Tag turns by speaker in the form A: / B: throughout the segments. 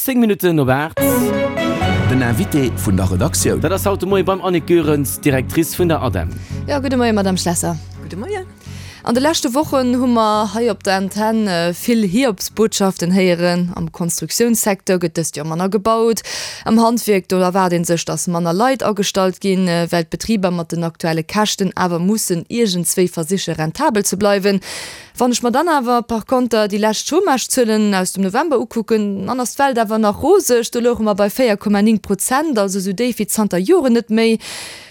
A: 10 Minutten op 8.
B: Den Invité vun der Redaktioun.
A: Dat ass haut de Moie beim Annick Goerens, Directrice vun der ADEM.
C: Jo, gudde Moie Madame Schlesser.
D: Gudde Moien.
C: An de leschte Wochen hu mer hei op der Antenn vill Hiobsbotschaften héieren. Am Konstruktiounssecteur gëtt dëst Joer manner gebaut. Am Handwierk, do erwaart ee sech, datt manner Leit agestallt ginn, well d'Betriber mat den aktuelle Käschten awer mussen iergendswéi versiche rentabel ze bleiwen. Wann ech mer dann awer par konter déi lescht Chômagezuelen aus dem November ukucken, dann ass d'Welt awer nach roseg. Do louche mer bei 4,9 Prozent, also esou déif wéi zanter Joren net méi.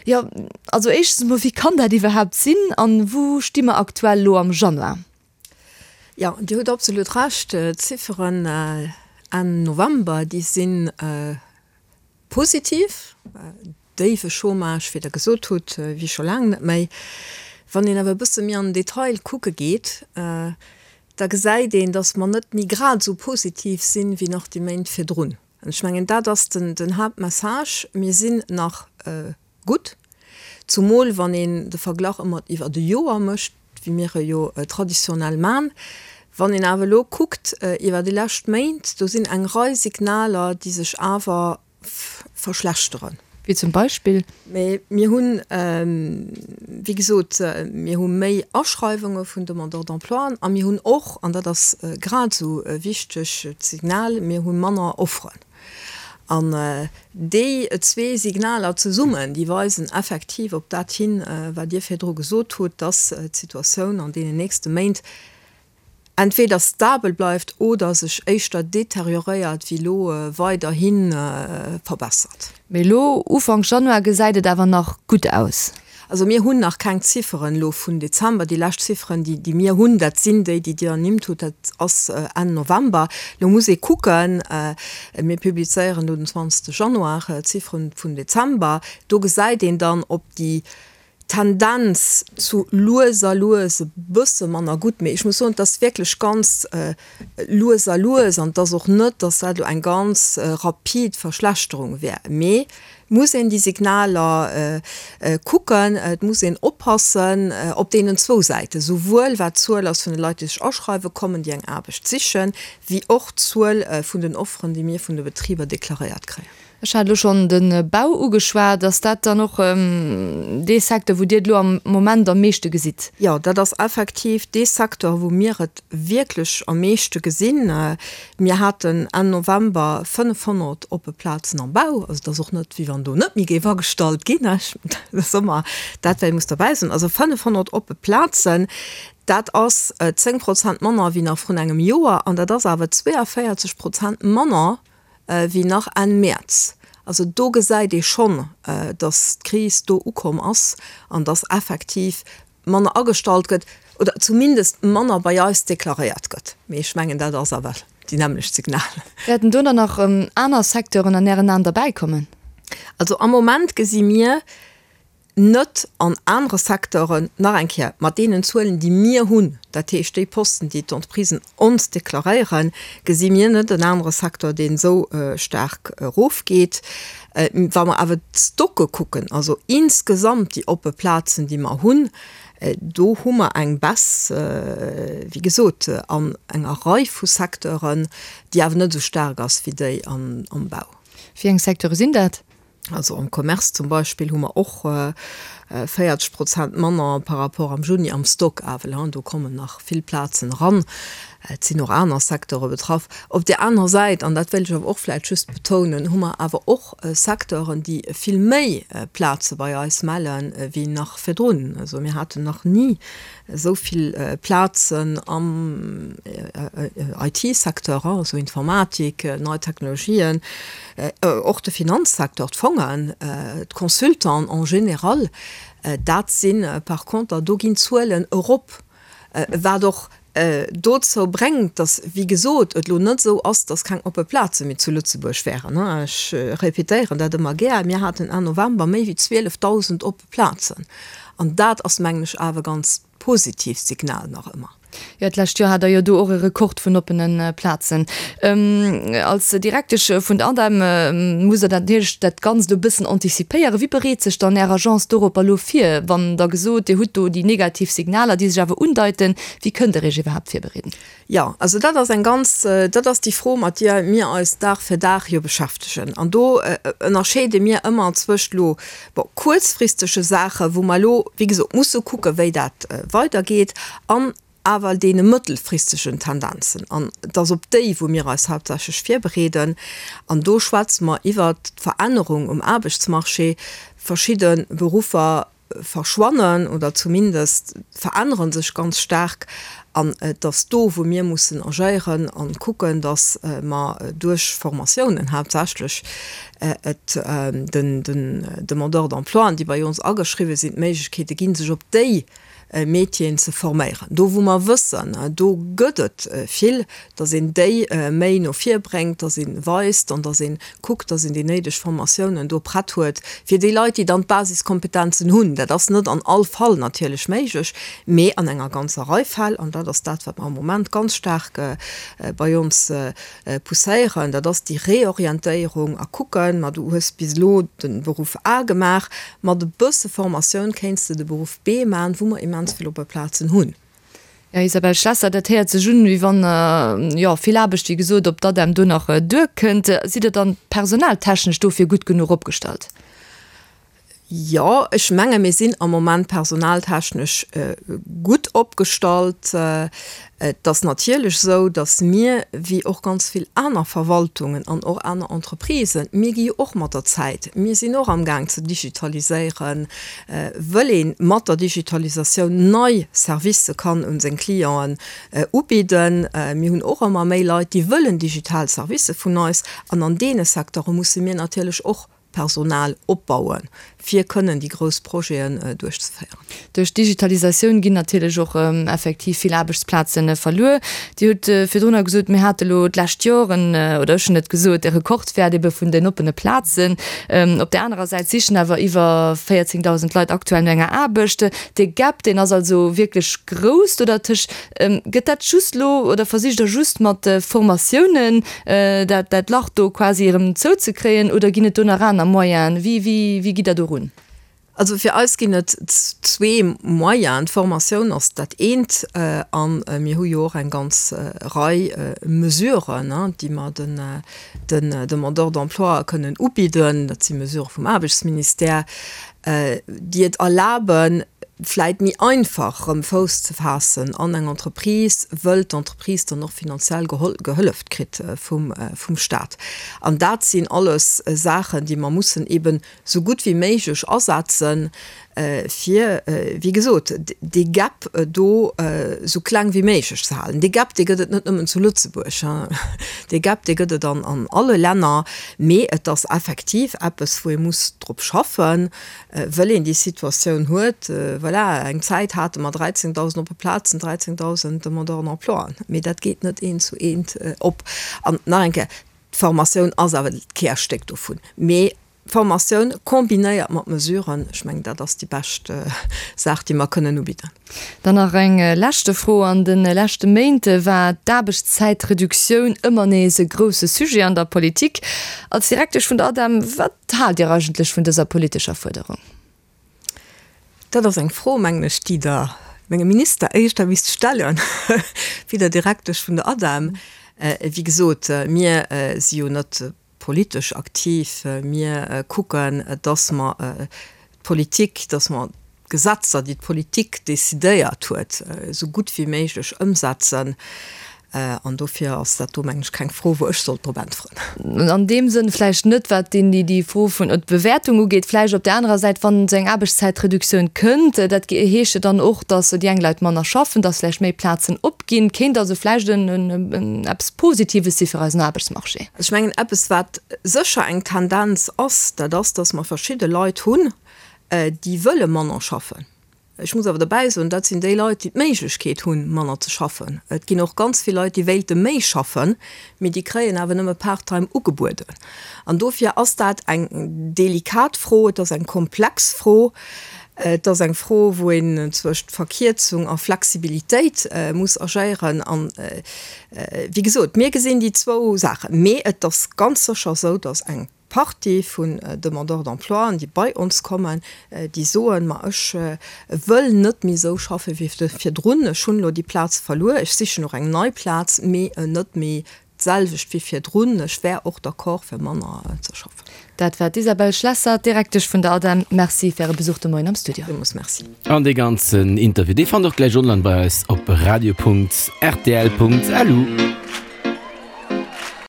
C: Jo, also éischtens emol, wéi kann dat iwwerhaapt sinn an wou sti mer aktuell elo am Januar?
D: Jo, Dir hutt absolut Recht. D'Zifferen Enn November, déi si positiv. Déiwe Chômage, wéi Der gesot hutt, wéi scho laang net méi. Wann een awer e bësse méi an den Detail kucke geet, da gesäit een, datt mer net méi grad esou positiv sinn, wéi nach déi Méint virdrun. An ech mengen, dat ass den Haaptmessage, Mir sinn nach gutt, zumol wann een de Verglach ëmmer iwwert e Joer mécht, wéi mir e jo traditionell man. Wann een awer elo kuckt iwwer déi lescht Méint, do sinn eng Rei Signaler, déi sech awer verschlechteren.
C: Wéi zum Beispill?
D: Mee mir hunn, wéi gesot, mir hu méi Aschreiwunge vun Demandeurs d'emploien a mir hunn och, an dat ass grad esou e wichtegt Signal, mir hu manner Offeren. An déi zwee Signaler zesummen, déi weisen effektiv op dat hin, wat Dir virdru gesot hutt, dass d'Situatioun an deenen nächste Méint entweder stabel bleift oder sech éischter deterioréiert wéi elo weiderhi verbessert.
C: Mee elo Ufank Januar gesäit et awer nach gutt aus.
D: Also mir hunn nach keng Zifferen elo vun Dezember. Déi lescht Zifferen, déi mir hunn, dat sinn déi, déi Dir ernimmt hutt, dat ass Enn November. Elo muss ee kucken, mir publizéieren elo den 20 Januar d'Zifferen vun Dezember, do gesäit een dann, ob déi Tendenz zu lues a lues e bësse manner gutt, mee ech muss soen, et ass wierklech ganz lues a lues an et ass och net, datt dat elo eng ganz rapid Verschlechterung wär. Mee et muss een déi Signaler kucken, et muss een oppassen op deenen zwou Säiten, souwuel wat d'Zuel ass vun de Leit, déi sech aschreiwe kommen, déi eng Aarbecht sichen, wéi och d'Zuel vun den Offeren, déi mir vun de Betriber deklaréiert kréien.
C: Ech hat elo schonn de Bau ugeschwat. Ass dat dann och dee Secteur, wou Dir et elo am Moment am meeschte gesitt?
D: Jo, dat ass effektiv dee Secteur, wou mir et wierklech am meeschte gesinn. Mir haten Enn November 500 oppe Plazen am Bau. Also et ass och net, wéi wann do net méi géif agestallt ginn. Dat ass ëmmer dat, wat ee muss derbäi soen. Also 500 oppe Plazen, dat ass 10 Prozent manner wéi nach vrun engem Joer an dat ass awer 42 Prozent manner wéi nach Enn Mäerz. Also do gesäit ee schonn, datt d'Kris do ukomm ass an datt effektiv manner agestallt gëtt oder zumindest manner bei eis deklaréiert gëtt. Mee ech mengen, dat ass awer déi nämmlecht Signal.
C: Wäerten do dann nach aner Secteuren an Ären Aen derbäikommen?
D: Also am Moment gesi mir net an anere Secteuren, nach eng Kéier, mat deenen Zuelen, déi mir hunn, dat heescht déi Posten, déi d'Entreprisen ons deklaréieren, gesi mir net en anere Secteur, deen esou staark erofgeet. Wa mer awer d'Stocke kucken, also insgesamt déi oppe Plazen, déi mer hunn, do hu mer eng Baisse, wéi gesot, an enger Rei vu Secteuren, déi awer net esou staark ass wéi déi am Bau.
C: Wéi eng Secteure sinn dat?
D: Also am Commerce zum Beispill hu mer och 40 Prozent manner par rapport am Juni am Stock awer, do kommen nach vill Plazen eran. Et sinn och aner Secteure betraff. Op där anerer Säit, an dat wéilt ech awer och vläicht just betounen, hu mer awer och Secteuren, déi vill méi Plaze bei eis melle wéi nach virdrun. Also mir haten nach ni esou vill Plazen am IT-Secteur, also Informatik, nei Technologien, och de Finanzsecteur, d'Fongen, d'Consultants en général, dat si par conter, do ginn d'Zuelen erop, wat och dozou bréngt, datt, wéi gesot, et elo net esou ass, datt keng oppe Plaze méi zu Lëtzebuerg wären. Ech répétéieren dat ëmmer gär, Mir haten Enn November méi wéi 12.000 oppe Plazen. An dat ass, mengen ech, awer e ganz positiivt Signal nach ëmmer.
C: Jo, d'lescht Joer hat Der jo do och e Rekord vun oppene Plazen. Als Direktesch vun der ADEM musst Der dat natierlech dat Ganzt e bëssen antizipéieren. Wéi bereet sech dann Är Agence doropper elo vir, wann Der gesot, Dir hutt do déi negativ Signaler, déi sech awer undeiten? Wéi kënnt Der Iech iwwerhaapt virbereeden?
D: Jo, also dat ass eng ganz, dat ass déi Fro, mat deer mir eis Dag fir Dag jo beschäftegen. An do ënnerscheede mir ëmmer zwëscht elo, bon, kuerzfristege Saachen, wou mer elo, wéi gesot, musse kucken, wéi dat weidergeet, an awer deene mëttelfristegen Tendenzen. An et ass op déi, wou mir eis haaptsächlech virbereeden. An do schwätze mer iwwert d'Verännerung um Aarbechtsmarché, verschidde Beruffer verschwannen oder zumindest verännere sech ganz staark. An et ass do, wou mir mussen agéieren a kucken, datt mer duerch Formatiounen haaptsächlech et den Demandeurs d'emploien, déi bei ons ageschriwwen sinn, d'Méiglechkeete ginn, sech op déi Métieren ze forméieren. Do wou mer wëssen, do gëtt et vill, datt een déi méi no vir bréngt, datt ee weist an datt ee kuckt, datt een déi néideg Formatiounen do prett huet fir déi Leit, déi dann d'Basiskompetenzen hunn. Dat ass net an all Fall natierlech méiglech, mee an enger ganzer Rei Fäll, an dat ass dat, wat mer am Moment ganz staark bei ons Pousséieren, dat ass déi Reorientéierung a kucken, ma du hues bis elo de Beruff A gemaach, mat e bësse Formatioun kéints de de Beruff B maachen, wou mer immens vill oppe Plazen hunn.
C: Jo, Isabelle Schlesser, dat héiert sech un, wéi wann, jo, vill Aarbecht, wéi gesot, op d'ADEM do nach duerkënnt. Sidd Der dann personaltechnesch dofir gutt genuch opgestallt?
D: Jo, ech menge mir sinn am Moment personaltechnesch gutt opgestallt. Et ass natierlech esou, datt mir, wéi och ganz vill aner Verwaltungen an och aner Entreprisen, mir gi jo och mat der Zäit, mir sinn och amgaang ze digitaliséieren, wëll ee mat der Digitalisatioun nei Servicë kann un seng Clienten ubidden. Mir hunn och ëmmer méi Leit, déi wëllen digital Servicë vun eis an an deene Secteure musse mir natierlech och Personal opbauen, fir kënnen déi grouss Projeten duerchzeféieren.
C: Duerch d'Digitalisatioun ginn natierlech och effektiv vill Aarbechtsplaze verluer. Dir hutt virdrunner gesot, mir hate lo d'lescht Joer en, oder ech hunn et gesot, e Rekordwäert ebe vun den oppene Plazen. Op där anerer Säit sichen awer iwwer 14.000 Leit aktuell no enger Aarbecht. Dee Gap, deen ass also wierklech grouss do dertëscht. Gëtt dat just lo, oder versicht Der just mat Formatiounen dat dat Lach do quasi erëm zouzekréien, oder ginn et do nach aner Moyenen? Wéi wéi wéi gitt Der do run?
D: Also fir eis ginn et zwee Moyenen. D'Formatioun ass dat eent a mir hu jo och eng ganz Rei Mesuren, déi mer den den Demandeurs d'emploi kënnen ubidden. Dat si Mesurë vum Aarbechtsministère, déi et erlaben, vläit méi einfach erëm Fouss ze faassen an eng Entreprise, wëll d'Entreprise dann och finanziell gehëlleft kritt vum Stat. An dat sinn alles Saachen, déi mer mussen eben esou gutt wéi méiglech asetzen, fir, wéi gesot, dee Gap do esou kleng wéi méiglech ze halen. Dee Gap, dee gëtt et net nëmmen zu Lëtzebuerg, dee Gap, dee gëtt et an alle Länner, mee et ass effektiv eppes, wou ee muss drop schaffen, Wëll een déi Situatioun huet, voilà, eng Zäit hate mer 13.000 oppe Plazen, 13.000 Demandeurs d'emploi, mee dat geet net eent zu eent op. An nach eng Kéier, d'Formatioun ass awer d'Kärstéck dovun. Mee Formatioun kombinéiert mat Mesuren, ech mengen, dat ass déi bescht Saach, déi mer kënnen ubidden.
C: Dann nach eng leschte Fro, An de leschte Méint war d'Aarbechtszäitreduktioun ëmmer nees e grousse Sujet an der Politik. Als Direktesch vun der ADEM, wat haalt Dir eigentlech vun dëser politescher Fuerderung?
D: Dat ass eng Fro, mengen ech, déi Der mengem Minister éischter misst stellen, wéi der Direktesch vun der ADEM. Wéi gesot, mir si jo net politesch aktiv. Mir kucken, dass mer d'Politik, dass mer d'Gesetzer, déi d'Politik decidéiert huet, esou gutt wéi méiglech ëmsetzen. An dofir ass dat do, mengen ech, keng Fro, wou ech sollt drop äntweren.
C: An deem Sënn vläicht net, wat déi Fro vun d'Bewäertung ugeet. Vläicht op där anerer Säit, wann esou eng Aarbechtszäitreduktioun kënnt, dat heescht jo dann och, dass déi eng Leit manner schaffen, dass vläicht méi Plazen opginn. Kéint also vläicht eppes Positives si fir eisen Aarbechtsmarché.
D: Ech mengen, eppes wat sécher eng Tendenz ass, dat ass, datt mer verschidde Leit hunn, déi wëlle manner schaffen. Ech muss awer derbäi soen, dat sinn déi Leit, déi d'Méiglechkeet hunn, manner ze schaffen. Et ginn och ganz vill Leit, déi wéilte méi schaffen, mee déi kréien awer nëmme Part-time ugebueden. An dofir ass dat eng delikat Fro, et ass eng komplex Fro. Et ass eng Fro, wou een zwëscht Verkierzung a Flexibilitéit muss agéieren. An, wéi gesot, mir gesinn déi zwou Saachen. Mee et ass ganz sécher esou, datt eng Partie vun Demandeurs d'emploien, déi bei ons kommen, déi soen, ma ech wëll net méi esou schaffe wéi virdrun, ech hunn elo déi Plaz verluer, ech sichen och eng nei Plaz, mee net méi d'selwecht wéi virdrun, ech wär och d'accord fir manner ze schaffen.
C: Dat war d'Isabelle Schlesser, Direktesch vun der ADEM. Merci fir Äre Besuch de Moien am Studio.
D: Villmools Merci.
A: An dee ganzen Interview, dee fannt der och gläich online bei eis op radio.rtl.lu.